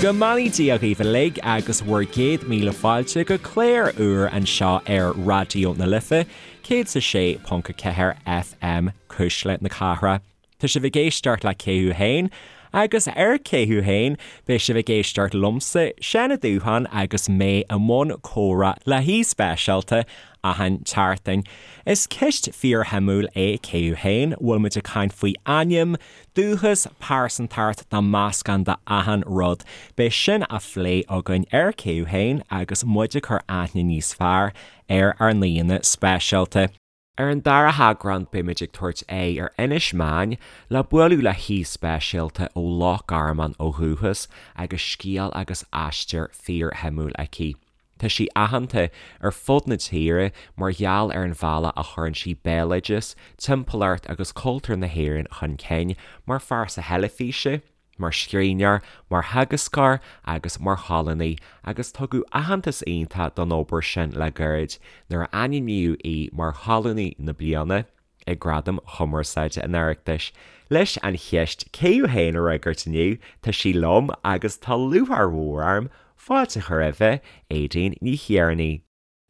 Go mbeannaí Dia dhaoibh uilig agus bhur gcéad míle fáilte go clár úr anseo ar Raidió na Life, 106.4 FM, Cuisle na Cathrach. Tá sibh ag éisteacht le Cé Thú Féin? Agus ar Cé Thú Féin? beidh sibh ag éisteacht liomsa, Seán Ó Dúcháin agus mé i mbun comhrá le haoi speisialta achan tseachtain. Is ceist fíorshuimiúil é Cé Thú Féin? Bhfuil muid ag caint faoi ainm, dúchas, pearsantacht nó meascán de achan rud. Beidh sin á phlé againn ar Cé Thú Féin agus muid ag cur aithne níos fearr ar ár n-aíonna speisialta. Ar an dara heagrán beimid ag tabhairt aghaidh ar Inis Meáin le bualadh le haoi speisialta ó Loch Garman ó dhúchas agus scéal agus aistear fíorshuimiúil aici. Tá sí aitheanta ar fud na tíre mar gheall ar an bhealach a chuireann sí béaloideas, timpeallacht agus cultúr na hÉireann chun cinn mar phearsa theilifíse, mar scríbhneoir, mar theagascóir agus mar cholúnaí agus tugadh aitheantas iontach don obair sin le gairid nuair a ainmníodh í mar Cholúnaí na Bliana ag Gradaim Chumarsáide an Oireachtais. Leis an cheist 'Cé thú féin' a fhreagairt inniu, tá sí liom agus tá lúcháir mhór orm fáilte a chur roimhe, Aedín Ní Thiarnaigh.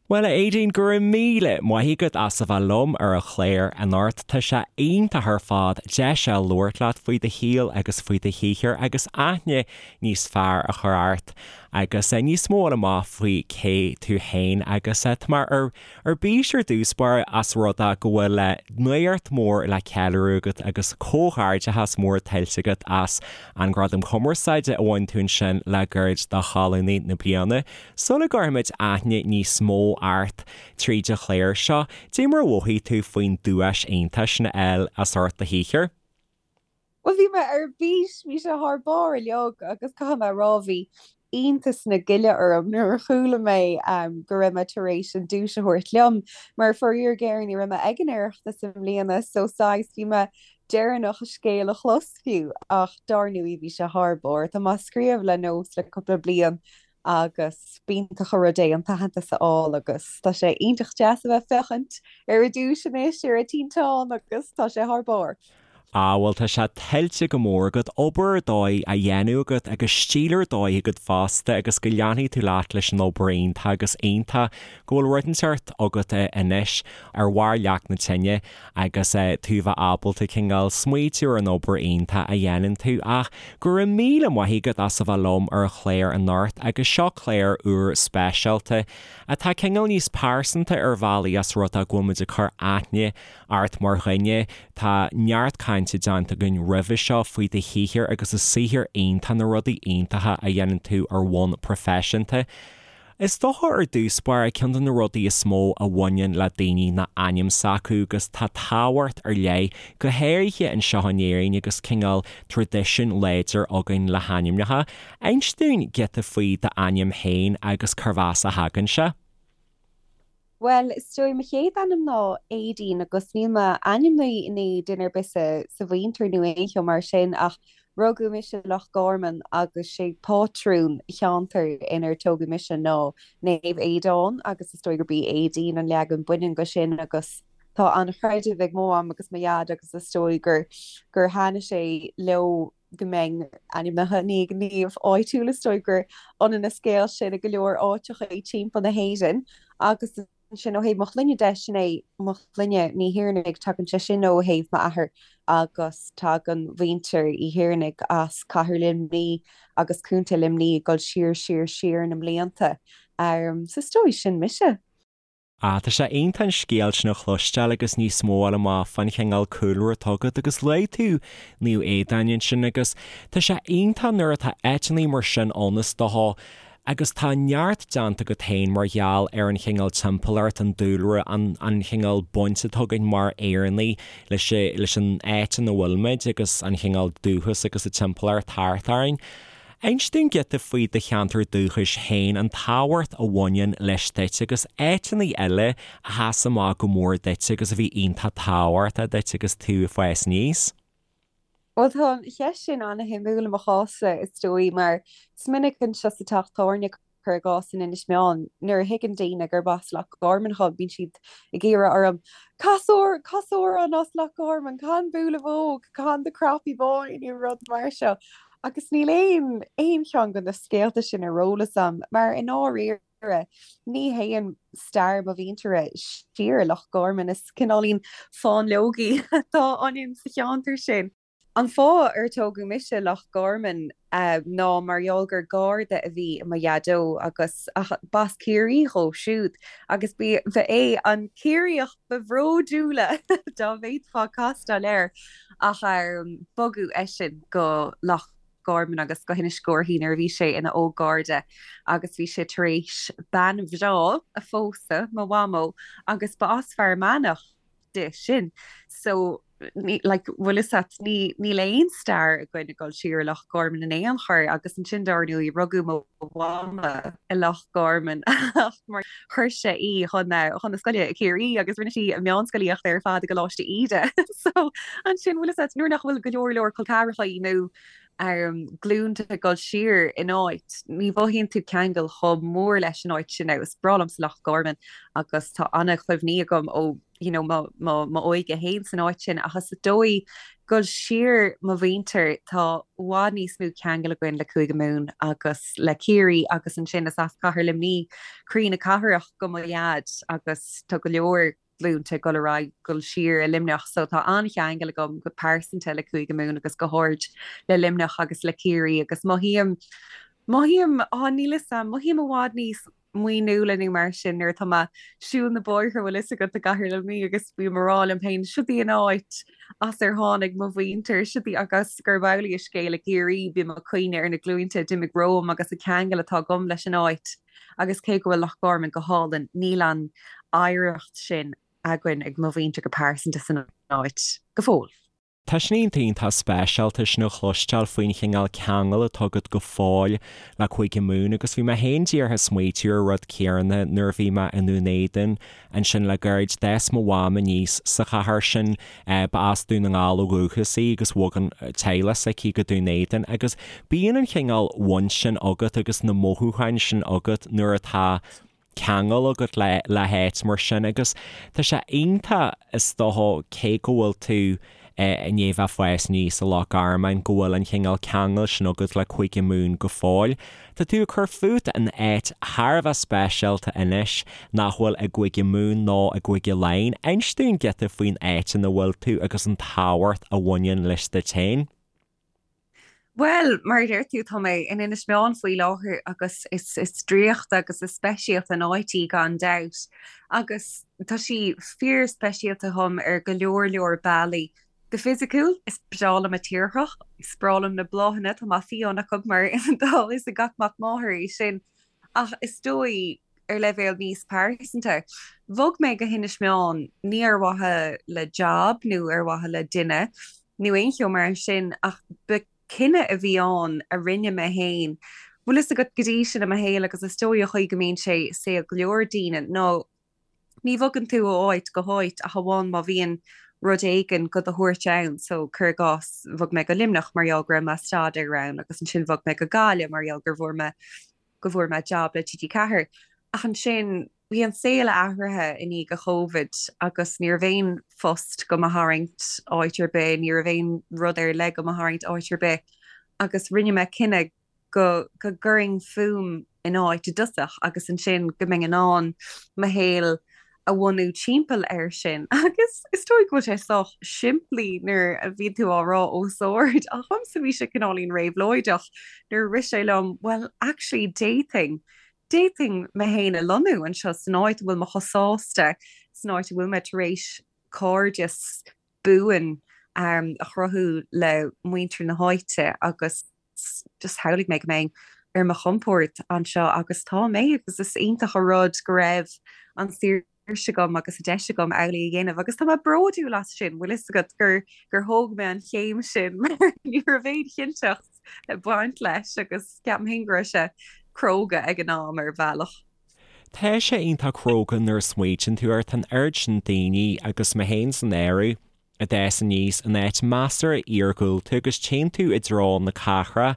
Bhuel, a Aedín, go raibh míle maith agat as a bheith liom ar an chlár anocht. Tá sé iontach ar fad deis a labhairt leat faoi do shaol agus faoi do shaothar agus aithne níos fearr a chur ort agus níos mó a fháil amach faoi cé tú féin agus tá mé ar ar bís ar dtús báire as rud é go bhfuil nuacht mhór le ceiliúradh agat agus comhghairdeachas mór tuillte agat as an Gradam Cumarsáide a bhain tú ansin le gairid do Cholúnaí na Bliana. Sula gcuirfimid aithne níos mó ort tríd an chlár seo, dé mar a mhothaigh tú faoin duais iontach sin a fháil as ucht do shaothair? Bhuel, bhí mé ar bís, bhí sé thar barr uilig agus caithfidh mé a rá, bhí iontas na gile orm nuair a chuala mé go raibh mé tar éis an duais a thabhairt liom, mar faraor géar ní raibh mé ag an Oireachtas i mbliana so saghas bhí mé deireanach an scéal a chlos fiú ach dár ndóigh bhí sé thar barr. Tá mé ag scríobh le nós le cúpla bliain agus b'iontach an rud é an t-aitheantas a fháil agus tá sé iontach deas a bheith ag féachaint ar an duais anois ar an tinteán agus tá sé thar barr. Ah bhuel tá sé tuillte go mór agat, obair ar dóigh á dhéanamh agat agus stíl ar dóigh agat fosta agus go leanfaidh tú leat leis an obair iontach agus iontach go bhfuil rud inteacht agat anois ar bharr leac na tine agus tú a bheith ábalta cineál smaoitiú ar an obair iontach a dhéanann tú. Ach go raibh míle maith agat as a bheith liom ar an chlár anocht agus seo clár úr speisialta atá cineál níos pearsanta ar bhealaí as rud é go bhfuil muid ag cur aithne ort mar dhuine. Tá neart cainte déanta againn roimhe seo faoi do shaothar agus an saothar iontach, na rudaí iontacha a dhéanann tú ar bhonn proifisiúnta. Is dócha ar dtús báire, ceann de na rudaí is mó a bhaineann le daoine ná ainm s'acu agus tá tábhacht ar leith, go háirithe anseo in Éirinn agus cineál traidisiún láidir againn le hainmneacha. Inis dúinn giota faoi d'ainm féin agus cérbh as a thagann sé. Bhuel, is dóigh, mo chéad ainm ná Aedín agus níl mé ainmnithe i ndiaidh duine ar bith sa sa mhuintir nó aon cheo mar sin ach rugadh mise i Loch Garman agus sé pátrún cheantar inar tógadh mise ná Naomh Aodán agus is dóigh gurb í Aedín an leagan baineann de sin agus tá an-chreideamh ag mo mham agus mo dhaid agus is dóigh gur gur thaitnigh sé leo go mbeinn ainmnithe i ndiaidh naomh áitiúil, is dóigh gur ionann an scéal sin i go leor áiteacha timpeall na hÉireann agus ansin ó thaobh mo shloinne de, sin é mo shloinne, Ní Thiarnaigh, tagann sé sin ó thaobh m'athair agus tagann muintir Uí Thiarnaigh as cathair Luimní agus contae Luimní ag dul siar siar siar na mblianta. So is dóigh sin mise. Ah, tá sé iontach an scéal sin a chloisteáil agus níos mó a fháil amach fán chineál cúlra atá agat agus luaigh tú Naomh Aodán ansin agus tá sé iontach nuair atá áiteanna mar sin ann is dócha agus tá neart déanta agat féin mar gheall ar an chineál timpeallacht, an dúlra, an an chineál baint atá againn mar Éireannaigh leis leis an áit ina bhfuil muid agus an chineál dúchas agus an timpeallacht thart orainn. Inis dúinn giota faoi do cheantar dúchais féin, an tábhacht a bhaineann leis duit agus áiteanna eile a sheas amach go mór duit agus a bhí iontach tábhachtach duit agus tú ag fás aníos. Bhuel, tá an cheist sin an-shuimiúil i mo chás-sa, is dóigh, mar is minic anseo sa teach tábhairne, cuir i gcás in Inis Meáin, nuair a thuigeann daoine gurb as Loch Garman dhom, bíonn siad ag iarraidh orm, Cas amhrán as Loch Garman, can Buaile Bhóg, can The Croppy Boy nó rud mar seo. Agus níl aon aon cheann de na scéalta sin ar eolas a'm, mar i ndáiríre, ní théann stair mo mhuintire siar i Loch Garman, is cineáilín fáinleogaí atá ionainn sa cheantar sin. An fáth ar tógadh mise i Loch Garman ná mar gheall gur Garda a bhí i mo Dhaideo agus b'as Ciarraí dhó siúd agus ba é an Ciarraíoch ba bhródúla dá bhféadfá castáil air ach bogadh eisean go Loch Garman agus go hInis Córthaidh nuair a bhí sé ina óg-Gharda agus bhí sé tar éis bean bhreá a phósadh, mo mhamó, agus ba as Fear Manach di sin. So, ní, like, bhfuil fhios a't, ní, níl aon stair againn ag dul siar i Loch Garman in aon chor agus ansin dár ndóigh rugadh mo mhama i Loch Garman ach mar chuir sé í chun, chun na scoile i Ciarraí agus rinne sí a meánscolaíocht ar fad i gColáiste Íde. So, ansin, bhfuil fhios a't, nuair nach bhfuil go leor leor col ceathracha nó glúnta ag dul siar in áit, ní mhothaíonn tú ceangal chomh mór leis an áit sin. Now, is breá liomsa Loch Garman agus tá an-chuimhní agam ó you know, mo, mo, m'óige féin san áit sin ach is dóigh dul siar mo mhuintir tá i bhfad níos mó ceangal againn le Cúige Mumhan agus le Ciarraí agus ansin is as Cathair Luimnigh, croí na cathrach do mo dhaid agus tá go leor glúnta ag dul ar aghaidh dul siar i Luimneach so tá an-cheangal agam go pearsanta le Cúige Mumhan agus go háirid le Luimneach agus le Ciarraí agus mothaím, mothaím, á níl 'fhios a'm, mothaím i bhfad níos muiníúla nó mar sin nuair atá mé ag siúl na bóithre bhfuil 'fhios agat i gCathair Luimnigh agus bím ag rá liom féin siod í an áit as ar tháinig mo mhuintir, siod í agus gurb amhlaidh an scéal i gCiarraí bím ag cuimhneamh ar na glúinte a d'imigh romham agus an ceangal atá agam leis an áit. Agus cé go bhfuil Loch Garman go hálainn, níl an oidhreacht sin againn ag mo mhuintir go pearsanta san áit go fóill. Tá sin iontach iontach speisialta sin a chloisteáil faoin chineál ceangail atá agat go fóill le Cúige Mumhan agus bhí mé féin díreach ag smaoitiú ar an rud céanna nuair a bhí mé i nDún Éideann Ansin le gairid d'fhás mo mham aníos sa chathair sin. Ba as Dún na nGall ó dhúchas í agus bhog an teaghlach s'aici go Dún Éideann agus bíonn an chineál bhaint sin agat agus na mothúcháin sin agat nuair atá ceangal agat le le háit mar sin agus tá sé iontach is dócha cé go bhfuil tú i ndiaidh bheith ag fás aníos i Loch Garman go bhfuil an chineál ceangail sin agat le Cúige Mumhan go fóill. Tá tú ag cur fút in áit thar a bheith speisialta anois nach bhfuil i gCúige Mumhan ná i gCúige Laighean. Inis dúinn giota faoin áit ina bhfuil tú agus an tábhacht a bhaineann leis duit féin. Bhuel, mar a deir tú, tá mé in Inis Meáin faoi láthair agus is is draíochta agus is speisialta an áit í gan dabht. Agus tá sí fíor-speisialta dhom ar go leor leor bealaí. Go fisiciúil, is breá liom an tírdhreach, is breá liom na bláthanna, tá mé fiáin acu mar tá a fhios ag gach mac máthar é sin. Ach is dóigh, ar leibhéal níos pearsanta, bhog mé go hInis Meáin ní ar mhaithe le jab nó ar mhaithe le duine nó aon cheo mar sin ach ba cinneadh a bhí ann a rinne mé féin. Bhfuil fhios agat go dtí sin i mo shaol agus is dóigh an chaoi go mbíonn sé i saol go leor daoine ná ní bhogann tú ó áit go háit ach amháin má bhíonn rud éigin do do thabhairt ann. So, cuir i gcás, bhog mé go Luimneach mar gheall go raibh mé ag staidéar ann agus ansin bhog mé go Gaillimh mar gheall gur bhfuair mé go bhfuair mé jab le TG4. Ach ansin bhí an saol athraithe i ndiaidh an Chovid agus ní raibh aon phost do mo tharraingt áit ar bith, ní raibh aon rud ar leith do mo tharraingt áit ar bith agus rinne mé cinneadh go go gcuirfinn fúm in áit i dtosach agus ansin go mbeinn in ann mo shaol a bhunú timpeall air sin. Agus is dóigh go bhfuil sé sách simplí nuair a bhíonn tú á rá os ard, ach dhomsa bhí sé cineáilín réabhlóideach nuair a rith sé liom, well actually d'fhéadfainn, d'fhéadfainn mé féin a lonnú anseo san áit a bhfuil mé chomh sásta, san áit a bhfuil mé tar éis cairdeas buan a chruthú le muintir na háite agus just shamhlaigh mé go mbeinn ar mo chompord anseo agus tá mé agus is iontach an rud go raibh an saoirse agam agus an deis agam amhlaidh a dhéanamh agus tá mé bródúil as sin, bhfuil fhios agat gur gur thóg mé an chéim sin mar ní raibh aon chinnteacht ag baint leis agus ceapaim féin go raibh sé cróga ag an am ar bhealach. Tá sé iontach cróga nuair a smaoitíonn tú air, tá an oiread sin daoine agus mé féin san áireamh, a d'fhás aníos in áit measartha iargúlta agus téann tú i dtreo na cathrach.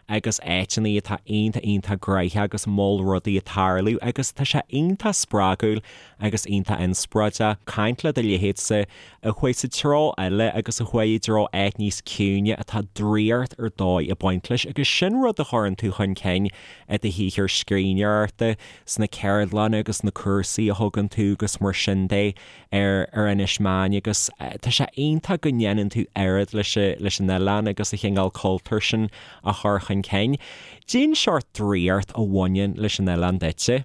agus áiteanna atá iontach iontach gnoitheach agus mol rudaí ag tarlú agus tá sé iontach spreagúil agus iontach inspioráideach caint le do leithéidse a chuaigh sa treo eile agus a chuaigh i dtreo áit níos ciúine atá draíocht ar dóigh ag baint leis agus sin rud a chuireann tú chun cinn i do shaothar scríbhneoireachta, sna ceardlanna agus na cúrsaí a thugann tú agus mar sin de. ar ar Inis Meáin agus tá sé iontach go ndéanann tú oiread leis leis an oileán agus an chineál cultúir sin a chur chun cinn. Cén seort draíocht a bhaineann leis an oileán duitse?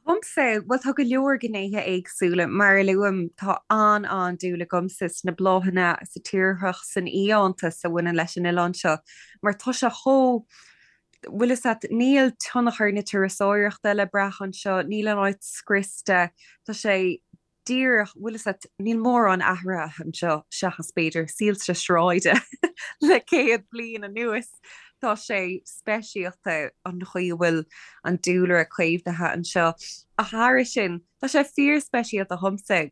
Dhomsa, bhuel tá go leor gnéithe éagsúla. Mar a luaim, tá an-an-dúil agamsa sna bláthanna, sa tírdhreach, san fhiántas a bhaineann leis an oileán seo mar tá sé chomh bhfuil fhios a't, níl tionchar na turasóireachta le brath anseo, níl an áit scriosta, tá sé díreach, bhfuil fhios a't, níl mórán athraithe anseo seachas b'fhéidir soilse sráide le 100 bliain anuas. Tá sé speisialta an chaoi a bhfuil an dúlra caomhnaithe anseo. Ach thairis sin, tá sé fíorspeisialta dhomsa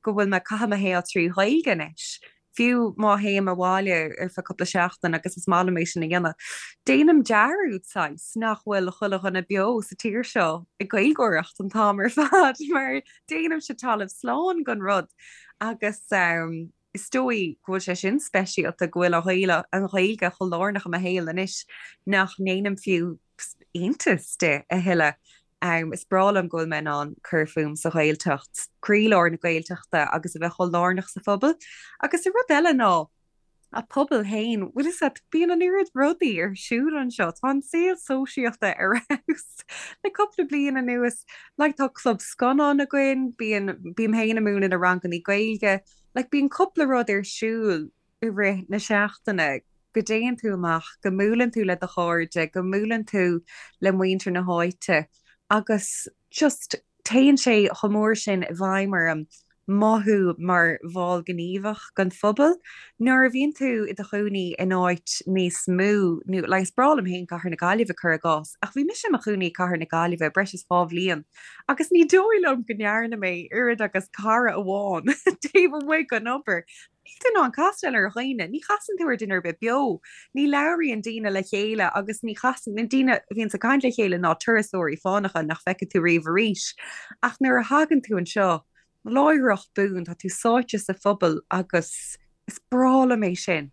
go bhfuil mé ag caitheamh mo shaol trí Ghaeilge anois, fiú má théim abhaile ar feadh cúpla seachtain agus is maith liom é sin a dhéanamh. Déanaim dearúd, saghas, nach bhfuil chuile dhuine beo sa tír seo ag Gaeilgeoireacht an t-am ar fad mar déanaimse talamh slán den rud agus is dóigh go bhfuil sé sin speisialta, go bhfuil an Ghaeilge chomh lárnach i mo shaol anois nach ndéanaim fiú iontas de a thuilleadh. Is breá liom go bhfuil mé in ann cur fúm sa Ghaeltacht, croílár na Gaeltachta agus a bheith chomh lárnach sa phobal. Agus an rud eile ná an pobal féin, bhfuil fhios a't, bíonn an oiread rudaí ar siúl anseo, tá an saol sóisialta ar fheabhas le cúpla bliain anuas. Like tá club scannán againn, bíonn, bím féin ag múineadh na rangannaí Gaeilge, like bíonn cúpla rud ar siúl i rith na seachtaine, go dtéann tú amach, go mbuaileann tú le do chairde, go mbuaileann tú le muintir na háite agus just téann sé chomh mór sin i bhfeidhm orm mothú mar bhall gníomhach den phobal. Nuair a bhíonn tú i do chónaí in áit níos mó, nó like is breá liom féin Cathair na Gaillimhe cuir i gcás, ach bhí mise i mo chónaí i Cathair na Gaillimhe breis is 2 bhliain agus ní dóigh liom go ndearna mé oiread agus cara amháin taobh amuigh den obair. Níl tú in ann castáil ar dhaoine, ní chasann tú ar duine ar bith beo, ní labhraíonn daoine le chéile agus ní chasann, na daoine a bhíonns ag caint le chéile ná turasóirí fánacha nach bhfeicfidh tú riamh arís. Ach nuair a thagann tú anseo, láithreach bonn, tá tú sáite sa phobal agus is breá liom é sin.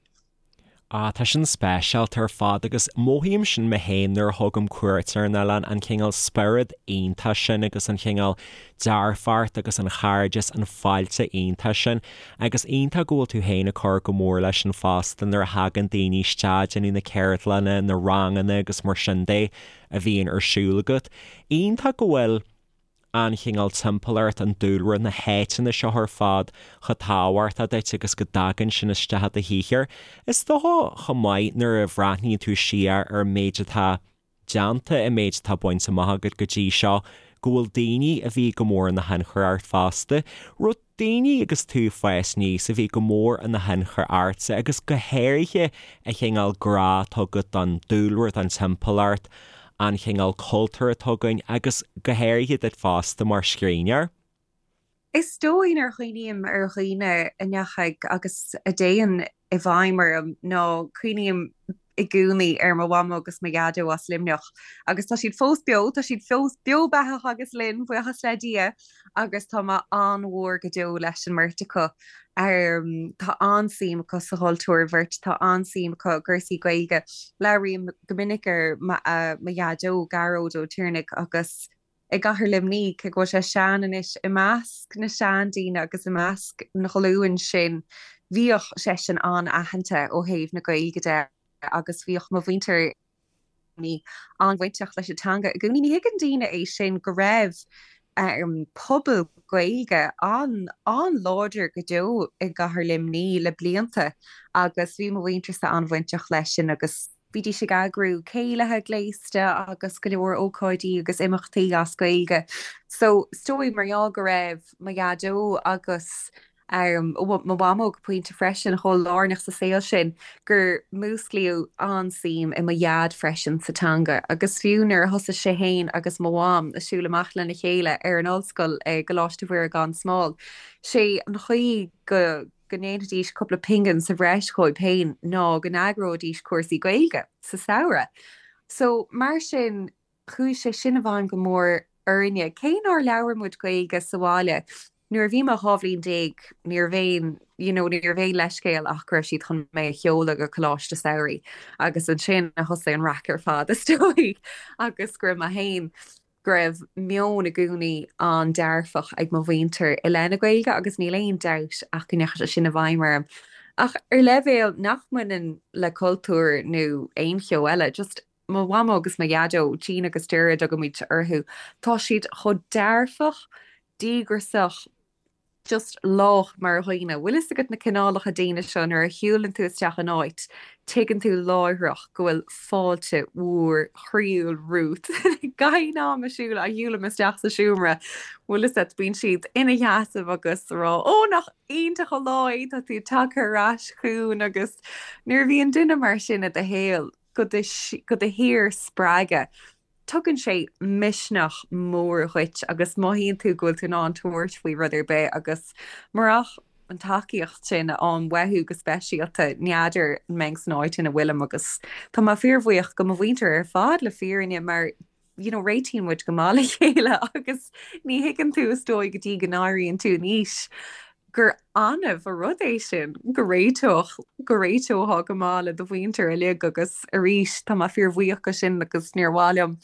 Ah, tá sin speisialta ar fad agus mothaím sin mé féin nuair a thugaim cuairt ar an oileán, an cineál spiorad iontach sin agus an cineál dearfacht agus an chairdeas, an fáilte iontach sin. Agus iontach go bhfuil tú féin ag cur go mór leis sin fosta nuair a thagann daoine isteach, déanamh na ceardlanna, na ranganna agus mar sin de a bhíonn ar siúl agat. Iontach go bhfuil. an chineál timpeallacht, an dúlra, na háiteanna seo ar fad chomh tábhachtach duit agus go dtagann sin isteach i do shaothar. Is dócha chomh maith nuair a bhreathnaíonn tú siar ar an méid atá déanta, an méid atá bainte amach agat go dtí seo, go bhfuil daoine a bhí go mór ina thionchar ort fosta. Raibh daoine agus tú ag fás aníos a bhí go mór ina thionchar ortsa agus go háirithe an chineál grá atá agat don dúlra, don timpeallacht, an chineál cultúir atá againn agus go háirithe duit fosta mar scríbhneoir. Is dóigh nuair a chuimhním ar dhaoine a ndeachaigh agus a dtéann i bhfeidhm orm ná cuimhním i gcónaí ar mo mhamó agus mo dhaideo as Luimneach agus tá siad fós beo, tá siad fós beo beathach agus linn, buíochas le Dia, agus tá mé an-mhór go deo leis an mbeirt acu. Tá an-suim acu sa chultúr, an bheirt, tá an-suim acu i gcúrsaí Gaeilge. Labhraím go minic ar mo dhaideo, Gearóid Ó Tiarnaigh, agus i gcathair Luimnigh, cé go bhfuil sé sean anois, i measc na seandaoine agus i measc an ghlúin sin, bhíodh seisean an-aitheanta ó thaobh na Gaeilge de agus bhíodh mo mhuintir an-bhainteach leis an teanga i gcónaí. Ní thuigeann daoine é sin, go raibh pobal Gaeilge an-láidir go deo i gcathair Luimnigh le blianta agus bhí mo mhuintirse an-bhainteach leis sin agus Bhídís ag eagrú céilithe gléasta agus go leor ócáidí agus imeachtaí as Gaeilge. So, is dóigh mar gheall go raibh mo dhaideo agus. Mo mhamó go pointe freisin, chomh lárnach sa saol sin gur músclaíodh an-suim i mo dhaid freisin sa teanga agus fiú nuair a thosaigh sé féin agus mo mham ag siúl amach lena chéile ar an ollscoil i gColáiste Mhuire gan Smál, sé an chaoi go go ndéanfaidís cúpla pingin sa bhreis dhóibh féin ná go n-eagróidís cúrsaí Gaeilge sa samhradh. So mar sin chuaigh sé sin i bhfeidhm go mór orainne. Cé nár labhair muid Gaeilge sa bhaile, nuair a bhí mé 12 bhliain, ní raibh aon, you know, ní raibh aon leithscéal ach go raibh siad chun mé a sheoladh go coláiste samhraidh agus ansin a thosaigh an raic ar fad is dóigh agus go raibh mé féin, go raibh meon i gcónaí an-dearfach ag mo mhuintir i leith na Gaeilge agus níl aon dabht ach go ndeachaigh sé sin i bhfeidhm orm. Ach ar leibhéal nach mbaineann le cultúr nó aon cheo eile, just mo mhamó agus mo dhaideo, Jean agus Ger a dtugaimid orthu, tá siad chomh dearfach, díograiseach, just lách mar dhaoine. Bhfuil fhios agat na cineálacha daoine seo nuair a shiúlann tú isteach in áit, tuigeann tú láithreach go bhfuil fáilte mhór chroíúil romhat. Gach aon am a siúl a shiúlaim isteach sa seomra, bhfuil fhios agat, bíonn siad ina sheasamh agus ag rá, 'Ó, nach iontach an lá é, tá tú tagtha ar ais chugainn' agus nuair a bhíonn duine mar sin i do shaol, go do shíor-spreagadh. Tugann sé misneach mór dhuit agus mothaíonn tú go bhfuil tú in ann tabhairt faoi rud ar bith agus murach an tacaíocht sin a fhaighim uathu go speisialta, n'fheadar an mbeinn san áit ina bhfuilim agus tá mé fíorbhuíoch go mo mhuintir ar fad le fírinne mar you know, réitíonn muid go maith le chéile agus ní thuigeann tú is dóigh go dtí go n-éiríonn tú in aois gur annamh an rud é sin go réiteodh, go réiteofá go maith le do mhuintir uilig agus arís tá mé fíorbhuíoch go sin agus níor mhaith liom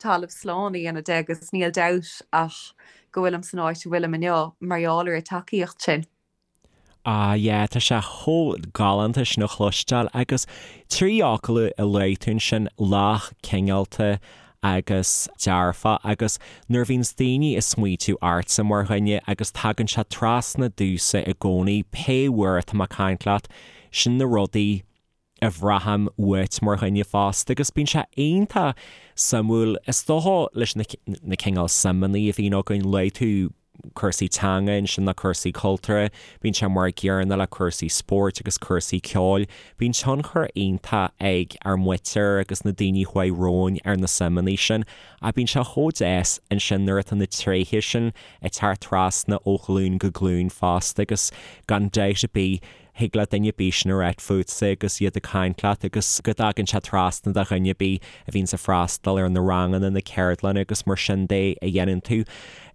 talamh slán a dhéanamh de agus níl dabht ach go bhfuilim san áit a bhfuilim inniu mar gheall ar an tacaíocht sin. Ah yeah, tá sé chomh galánta sin a chloisteáil agus trí fhocal a luaigh tú ansin, lách, cineálta agus dearfach agus nuair a bhíonns daoine ag smaoitiú ortsa mar dhuine agus tagann sé trasna domhsa i gcónaí pé uair atá mé ag caint leat, sin na rudaí a bhraithim uait mar dhuine fosta agus bíonn sé iontach suimiúil is dócha leis na na cineál suimeanna a bhíonn againn, luaigh tú cúrsaí teanga ansin nó cúrsaí cultúrtha, bíonn sé mar an gcéanna le cúrsaí spóirt agus cúrsaí ceoil. Bíonn tionchar iontach ag ár muintir agus na daoine a chuaigh romhainn ar na suimeanna sin ach bíonn sé chomh deas ansin nuair atá na tréithe sin ag teacht trasna ó ghlúin go glúin fosta agus gan dabht ar bith Thig le duine ar bith sin a ráit fútsa agus iad ag caint leat agus go dtagann sé trasna do dhuine ar bith a bhíonns ag freastal ar na ranganna, na ceardlanna agus mar sin de a dhéanann tú.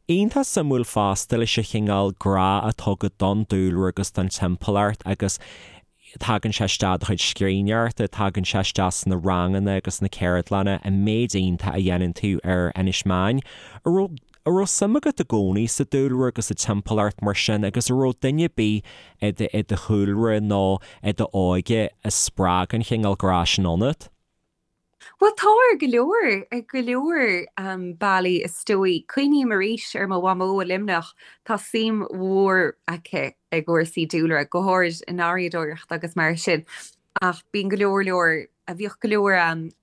Iontach suimiúil fosta leis an chineál grá atá agat don dúlra agus don timpeallacht agus tagann sé isteach i do chuid scríbhneoireachta, tagann sé isteach sna ranganna agus na ceardlanna, an méid iontach a dhéanann tú ar Inis Meáin. An raibh An raibh suim agat i gcónaí sa dúlra agus sa timpeallacht mar sin agus an raibh duine ar bith i do i do chúlra nó i d'óige a spreag an chineál grá sin ionat? Bhuel, tá ar go leor, ar go leor bealaí is dóigh. Cuimhním arís ar mo mhamó i Luimneach, tá suim mhór aici i gcúrsaí dúlra, go háirid i ngarraíodóireacht agus mar sin. Ach bíonn go leor leor, bhíodh go leor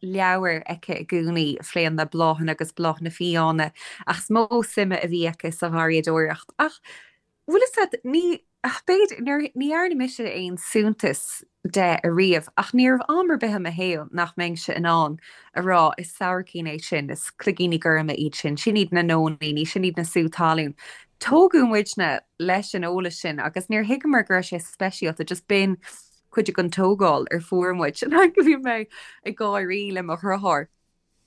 leabhar aici i gcónaí a phléann le bláthanna agus bláthanna fiáine, ach is mó suime a bhí aici sa gharraíodóireacht. Ach bhfuil fhios agat, ní, b'fhéidir, ní dhearna mise aon suntas de ariamh, ach ní raibh am ar bith i mo shaol nach mbeinnse in ann a rá, is sabhaircín é sin, is cloigíní gorma iad sin, sin iad na nóiníní, sin iad na sú talún. Tógadh muidne leis an eolas sin agus níor thuigeamar go raibh sé speisialta, just b'in cuid den tógáil ar fuair muid. Like bhí mé ag gáirí le mo dheartháir,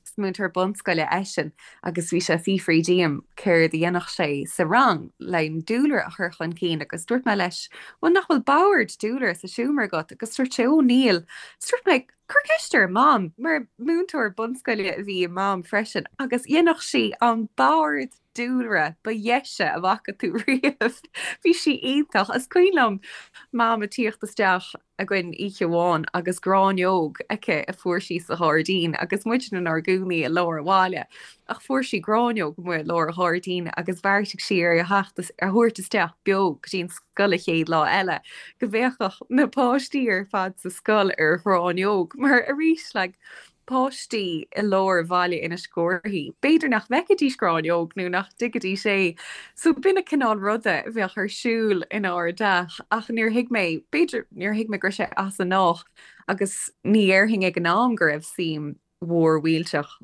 is múinteoir bunscoile eisean, agus bhí sé ag fiafraí díom céard a dhéanfadh sé sa rang le an dúlra a chur chun cinn agus dúirt mé leis, bhuel nach bhfuil bord dúlra sa seomra agat? Agus dúirt sé, ó níl. Is dúirt mé, cuir ceist ar Mam, mar múinteoir bunscoile a bhí i Mam freisin agus dhéanfadh sí an bord dúlra ba dheise a bhfaca tú riamh. Bhí sí iontach. Is cuimhin liom Mam ag tíocht isteach againn oíche amháin agus gráinneog aici a fuair sí sa ghairdín agus muid inár gcónaí i lár an bhaile ach fuair sí gráinneog amuigh i lár an ghairdín agus bheartaigh sí ar a theacht a thabhairt isteach beo go dtí an scoil an chéad lá eile go bhféachfadh na páistí ar fad sa scoil ar ghráinneog mar arís like. Páistí i lár bhaile Inis Córthaidh, b'fhéidir nach bhfeicfidís gráinneog nó nach dtuigfidís é. So b'in an cineál ruda a bheadh ar siúl inár dteach ach níor thuig mé, b'fhéidir, níor thuig mé go raibh sé as an ngnách agus ní dhéarfainn ag an am go raibh suim mhór mhillteach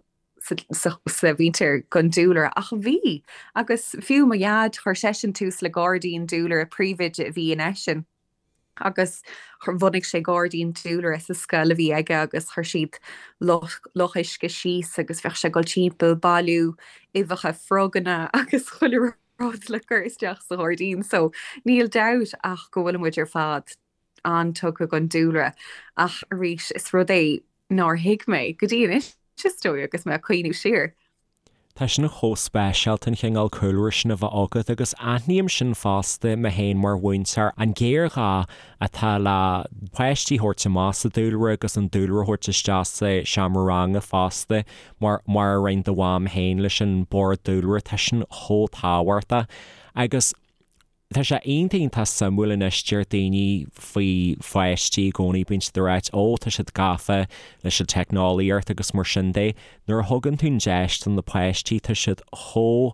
sa mhuintir don dúlra ach bhí agus fiú mo dhaid chuir seisean tús le gairdín dúlra, príomhoide a bhí in eisean. agus bhunaigh sé gairdín dúlra sa scoil a bhí aige agus chuir siad loch uisce síos agus bheadh sé ag dul timpeall ag bailiú uibheacha froganna agus chuile rud le cur isteach sa ghairdín so níl dabht ach go bhfuil muid ar fad an-tugtha don dúlra ach arís is rud é nár thuig mé go dtí anois is dóigh agus mé ag cuimhniú siar. Tá sin chomh speisialta an chineál cúlra sin a bheith agat agus aithním sin fosta mé féin mar mhúinteoir, an géarghá atá le páistí a thabhairt amach sa dúlra agus an dúlra a thabhairt isteach sa seomra ranga fosta mar mar a rinne do mham féin leis an bord dúlra, tá sin chomh tábhachtach agus. Tá sé iontach iontach suimiúil anois, deir daoine faoi pháistí i gcónaí, bíonn siad ag ráit 'Ó, tá siad gafa leis an teicneolaíocht' agus mar sin de. Nuair a thugann tú an deis do na páistí, tá siad chomh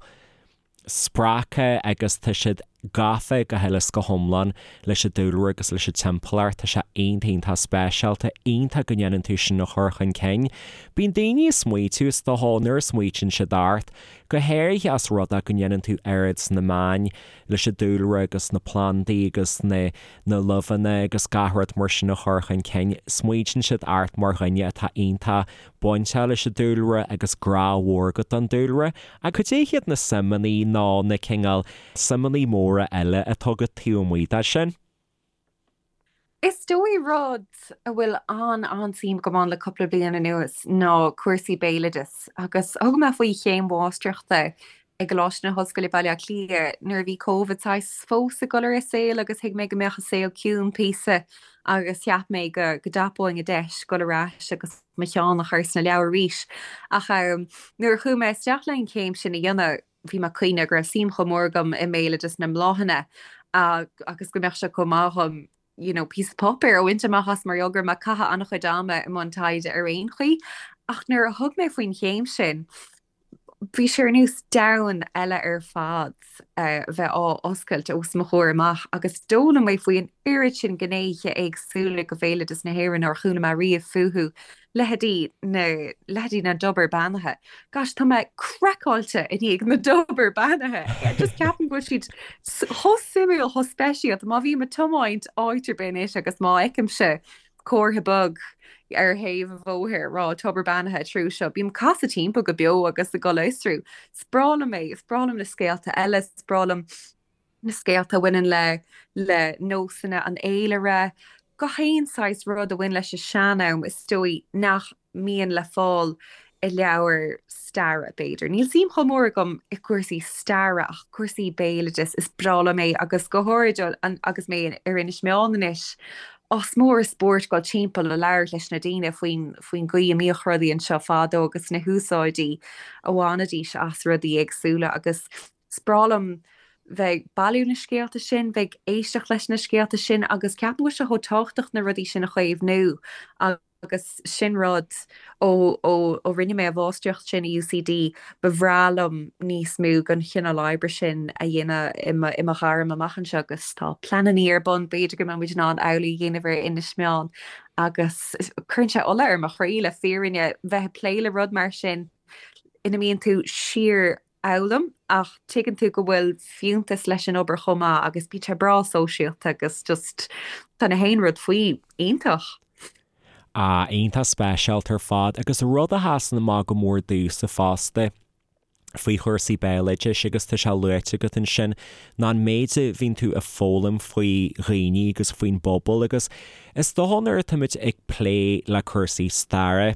spreagtha agus tá siad gafa go huile is go hiomlán leis an dúlra agus leis an timpeallacht. Tá sé iontach iontach speisialta, iontach go ndéanann tú sin a chur chun cinn. Bíonn daoine ag smaoitiú, is dócha, nuair a smaoitíonn siad ort, go háirithe as rud é go ndéanann tú oiread sna meáin leis an dúlra agus na plandaí agus na na luibheanna agus gach rud mar sin a chur chun cinn. Smaoitíonn siad ort mar dhuine atá iontach bainteach leis an dúlra agus grá mhór agat don dúlra. Ach cad é hiad na suimeanna nó na cineál suimeanna móra eile atá agat taobh amuigh de sin? Is dóigh rud a bhfuil an-an-suim agam ann le cúpla bliain anuas ná cúrsaí béaloidis agus thug mé faoi chéim mháistreachta i gColáiste na hOllscoile Baile Átha Cliath nuair a bhí Covid saghas fós ag dul ar an saol agus thuig mé go mbeadh an saol ciúin píosa agus cheap mé go go dtapóinn an deis dul ar ais agus mo cheann a chur sna leabhair arís ach nuair a chuaigh mé isteach le an chéim sin a dhéanamh bhí mé ag cuimhneamh go raibh suim chomh mór agam i mbéaloideas na mbláthanna agus go mbeadh sé chomh maith dhom you know, píosa páipéir a bhaint amach as mar gheall go raibh mé ag caitheamh an-chuid ama i mbun taighde ar aon chaoi. Ach nuair a thug mé faoin chéim sin, bhí sé ar nós domhan eile ar fad a bheith á oscailt os mo chomhair amach agus d'fhoghlaim mé faoi an oiread sin gnéithe éagsúla de bhéaloideas na hÉireann nár chuala mé riamh fúthu leithéidí na, leithéidí na dtobar beannaithe. Gosh, tá mé craiceáilte i ndiaidh na dtobar beannaithe. Just ceapaim go bhfuil siad chomh suimiúil, chomh speisialta. Má bhím ag tiomáint áit ar bith anois agus má fheicimse comhartha beag ar thaobh an bhóthair ag rá tobar beannaithe treo seo, bím ag casadh timpeall go beo agus ag dul a fhiosrú. Is breá liom é, is breá liom na scéalta eile, is breá liom na scéalta a bhaineann le le nósanna an fhéilire, gach aon saghas rud a bhain leis an sean-am is dóigh nach mbíonn le fáil i leabhair staire, b'fhéidir. Níl suim chomh mór agam i gcúrsaí staire ach cúrsaí béaloidis, is breá liom é agus go háirid agus mé ar Inis Meáin anois, is mór an spórt dul timpeall a labhairt leis na daoine faoin faoin gcaoi a mbíodh rudaí anseo fadó agus na húsáidí a bhainidís as rudaí éagsúla agus Is breá liom bheith ag bailiú na scéalta sin, bheith ag éisteacht leis na scéalta sin agus ceapaim go bhfuil sé chomh tábhachtach na rudaí sin a chaomhnú agus sin rud ó ó ó rinne mé an mháistreacht sin i UCD ba bhreá liom níos mó den chineál oibre sin a dhéanamh i mo i mo ghairm amach anseo agus tá pleanannaí ar bun b'fhéidir go mbeidh muid in ann amhlaidh a dhéanamh ar Inis Meáin agus cuireann sé ola ar mo chroí le fírinne bheith ag plé le rud mar sin ina mbíonn tú síor fhoghlaim ach tuigeann tú go bhfuil fiúntas leis an obair chomh maith agus bíonn sé breá sóisialta agus just tá na haon rud faoi iontach. Ah, iontach speisialta ar fad agus rud a sheasann amach go mór domhsa fosta faoi chúrsaí béaloidis agus tá sé luaite agat ansin ná an méid a bhíonn tú ag foghlaim faoi dhaoine agus faoin bpobal agus is dócha nuair atáimid ag plé le cúrsaí staire,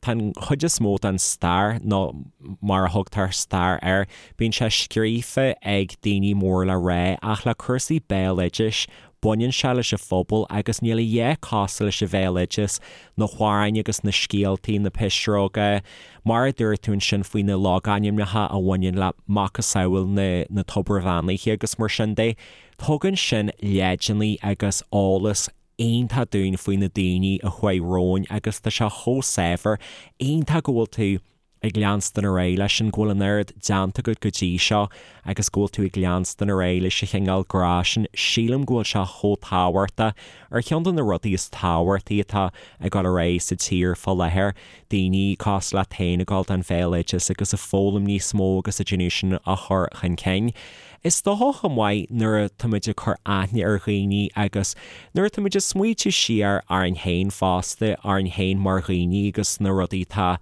Tá an chuid is mó den stair, nó mar a thugtar stair air, bíonn sé scríofa ag daoine mór le rá, ach le cúrsaí béaloidis, baineann sé leis an phobal agus níl a dhath cosúil leis an bhéaloideas, na hamhráin agus na scéaltaí, na pisreoga, mar a dúirt tú ansin faoi na logainmneacha a bhaineann le macasamhail na na tobair bheannaithe agus mar sin de. Tugann sin leideanna agus eolas. iontach dúinn faoi na daoine a chuaigh romhainn agus tá sé chomh saibhir. Iontach go bhfuil tú ag leanstan ar aghaidh leis sin, go bhfuil an oiread déanta agat go dtí seo agus go bhfuil tú ag leanstan ar aghaidh leis an chineál grá sin, sílim go bhfuil sé chomh tábhachtach, ar cheann de na rudaí is tábhachtaí atá ag dul ar aghaidh sa tír fá láthair, daoine cosúil leat féin ag dul don bhéaloideas agus ag foghlaim níos mó agus ag déanamh sin a chur chun cinn. Is dócha chomh maith nuair atáimid ag cur aithne ar dhaoine agus nuair atáimid ag smaoitiú siar orainn féin fosta, orainn féin mar dhaoine agus na rudaí atá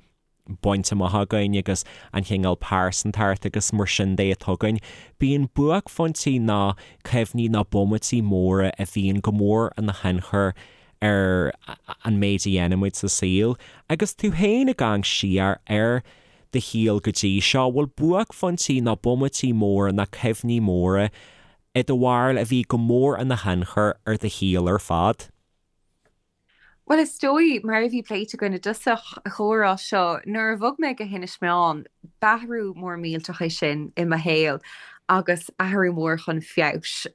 bainte amach againn agus an chineál pearsantacht agus mar sin de atá againn, bíonn buaicphointí nó cuimhní nó bomaití móra a bhíonn go mór ina thionchar ar an méid a dhéanaimid sa saol. Agus tú féin ag amharc siar ar do shaol go dtí seo, bhfuil buaicphointí nó bomaití móra nó cuimhní móra i do bharúil a bhí go mór ina thionchar ar do shaol ar fad? Bhuel, is dóigh, mar a bhí pléite againn i dtosach an chomhrá seo, nuair a bhog mé go hInis Meáin, b'athrú mór millteach é sin i mo shaol agus athrú mór chun feabhais.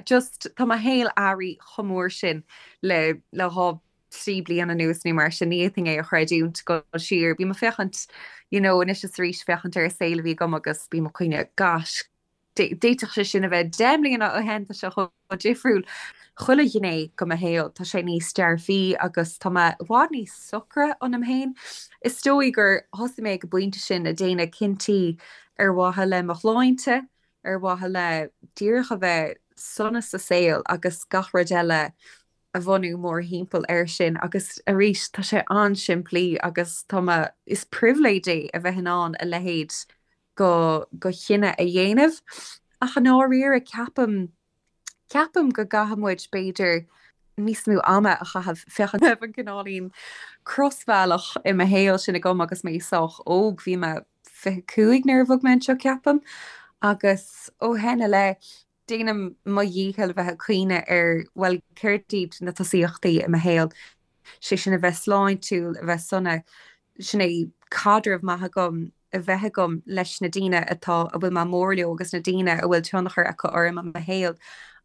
Just, tá mo shaol athraithe chomh mór sin le le 2, 3 bliana anuas nó mar sin, ní fhéadfainn é a chreidiúint, dul siar. Bím ag féachaint, you know, anois is arís féachaint ar an saol a bhí agam agus bím ag cuimhneamh, gosh, D'fhéadfadh sé sin a bheith 10 mbliana ó shin, tá sé chomh difriúil. Chuile ghné de mo shaol, tá sé níos dearfaí agus tá mé i bhfad níos socra ionam féin. Is dóigh gur thosaigh mé ag an bpointe sin ag déanamh cinntí ar mhaithe le mo shláinte, ar mhaithe le díreach a bheith sona sa saol agus gach rud eile a bhunú mórthimpeall air sin agus arís tá sé an-simplí agus tá mé, is pribhléid é a bheith in ann a leithéid go go chinneadh a dhéanamh. Ach i ndáiríre ceapaim, ceapaim go gcaithfidh muid b'fhéidir níos mó ama a chaitheamh féachaint raibh an cineáilín crosbhealach i mo shaol sin agam agus mé sách óg, bhí mé 25 nuair a bhog mé anseo ceapaim, agus ó shin i leith déanaim mo dhícheall a bheith ag cuimhneamh ar bhuel céard iad na tosaíochtaí i mo shaol, sé sin a bheith sláintiúil, a bheith sona, sin é caidreamh maith agam a bheith agam leis na daoine atá, a bhfuil mé mór leo agus na daoine a bhfuil tionchar acu orm i mo shaol.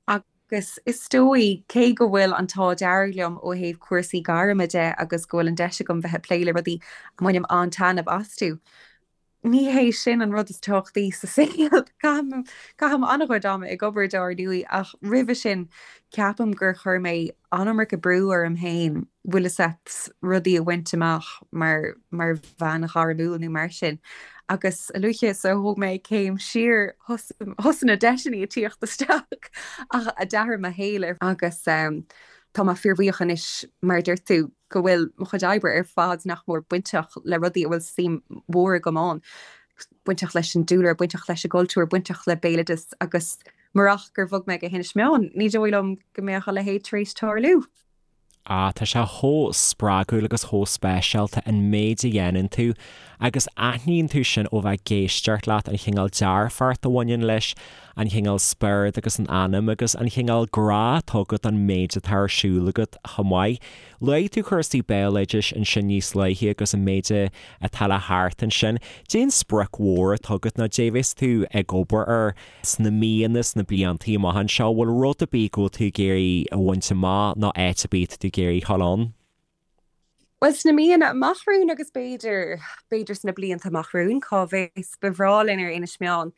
Agus is dóigh, cé go bhfuil an t-ádh dearg liom ó thaobh cúrsaí gairme de agus go bhfuil an deis agam bheith ag plé le rudaí a mbainim an-taitneamh astu, ní hé sin an rud is tábhachtaí sa saol. Caithim, caithim an-chuid ama ag obair dár ndóigh ach roimhe sin ceapaim gur chuir mé an-iomarca brú orm féin, bhfuil fhios a't, rudaí a bhaint amach mar, mar bhean ghairmiúil nó mar sin. Agus a luaithe is a thóg mé céim siar thosaigh na deiseanna ag tíocht isteach ach a d'athraigh mo shaol agus tá mé fíorbhuíoch anois mar a dúirt tú, go bhfuil mo chuid oibre ar fad nach mór bainteach le rudaí a bhfuil suim mhór agam ann, bainteach leis an dúlra, bainteach leis an gcultúr, bainteach le béaloideas agus murach gur bhog mé go hInis Meáin, ní dóigh liom go mbeadh a leithéid tar éis tarlú. Ah, tá sé chomh spreagúil agus chomh speisialta an méid a dhéanann tú agus aithníonn tú sin ó bheith ag éisteacht leat, an chineál dearfacht a bhaineann leis, an chineál spiorad agus an anam agus an chineál grá atá agat don méid atá ar siúl agat chomh maith. Luaigh tú cúrsaí béaloidis ansin níos luaithe agus an méid atá le theacht ansin. Cén sprioc mhór atá agat nó cad é a bheas tú ag obair air sna míonna, sna bliantaí amach anseo? Bhfuil rud ar bith go bhfuil tú ag iarraidh a bhaint amach nó áit ar bith atá tú ag iarraidh a dhul ann? Bhuel, sna míonna amach romhainn agus b'fhéidir, b'fhéidir sna blianta amach romhainn, cá bhfios, ba bhreá linn ar Inis Meáin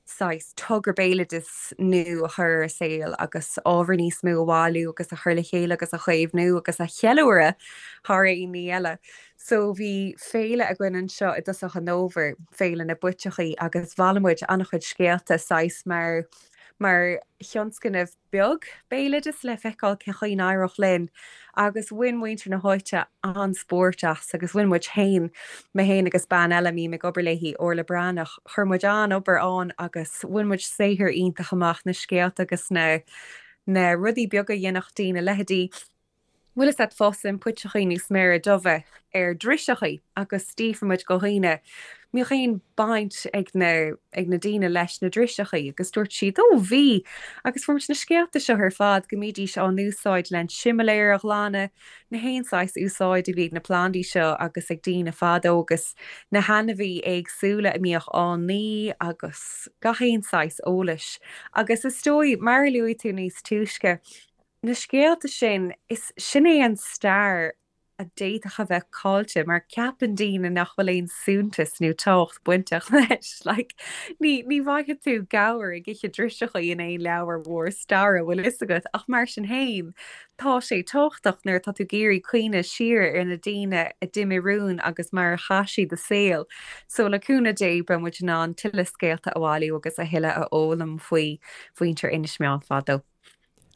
saghas togra béaloidis nua a chur ar an saol agus ábhar níos mó a bhailiú agus a chur le chéile agus a chaomhnú agus a cheiliúradh thar aon ní eile. So bhí féile againn anseo i dtosach an fhómhair, Féile na bPuiteachaí, agus bhailigh muid an-chuid scéalta saghas mar, mar thionscnamh beag béaloidis le feiceáil cén chaoi a n-éireodh linn agus bhain muintir na háite an-spórt as agus bhain muid féin, mé féin agus bean eile a mbím ag obair léi, Orla Breathnach, chuir muid an-obair ann agus bhain muid saothar iontach amach, na scéalta agus na na rudaí beaga a dhéanfadh daoine, leithéidí. Bhfuil fhios a't fásann puiteachaí nó sméara dubha ar driseachaí agus d'fhiafraigh muid go dhaoine mbíodh aon baint ag na ag na daoine leis na driseachaí agus dúirt siad ó bhí agus fuair muid na scéalta seo ar fad go mbídís á n-úsáid len similéir a ghlanadh, na haon saghas úsáid a bhí ag na plandaí seo agus ag daoine fadó agus na hainmhí éagsúla a mbíodh á n-ní agus gach aon saghas eolais agus is dóigh mar a luaigh tú níos túisce. Na scéalta sin, is sin é an stair a d'fhéadfadh a bheith caillte mar ceapann daoine nach bhfuil aon suntas nó tábhacht bainteach leis. Like, ní, ní bhfaighidh tú gabhar ag ithe driseachaí in aon leabhar mhór staire, bhfuil fhios agat, ach mar sin féin, tá sé tábhachtach nuair atá tú ag iarraidh cuimhneamh siar ar na daoine a d'imigh romhainn agus mar a chaith siad a saol. So le cúnamh Dé beidh muid in ann tuilleadh scéalta a bhailiú agus a thuilleadh a fhoghlaim faoi mhuintir Inis Meáin fadó.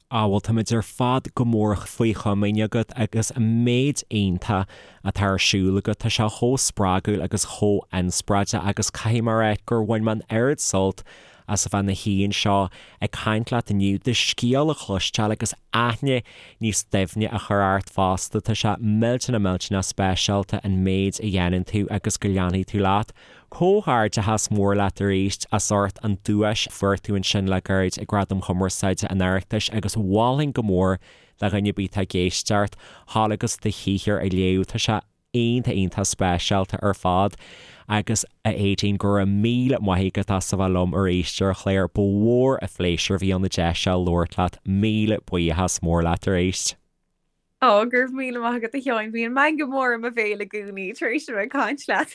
Á, bhuel, táimid ar fad go mór faoi chomaoin agat agus an méid iontach atá ar siúl agat. Tá sé chomh spreagúil agus chomh inspioráideach agus caithfidh mé a rá gur bhain mé an oiread sult as a bheith ina shuí anseo ag caint leat inniu, do scéal a chloisteáil agus aithne níos doimhne a chur ort fosta. Tá sé millteanach millteanach speisialta an méid a dhéanann tú agus go leanfaidh tú leat. Comhghairdeachas mór leat arís as ucht an duais a fuair tú ansin le gairid ag Gradaim Chumarsáide an Oireachtais agus mholfainn go mór le dhuine ar bith atá ag éisteacht dhul agus do shaothar a léamh. Tá sé iontach iontach speisialta ar fad agus a Aedín go raibh míle maith agat as a bheith liom arís ar an chlár. Ba mhór an phléisiúr a bhí ann an deis seo labhairt leat. Míle buíochas mór leat arís. Ó, go raibh míle maith agat a Sheáin, bíonn meangadh mór i mo bhéal i gcónaí tar éis a bheith ag caint leat.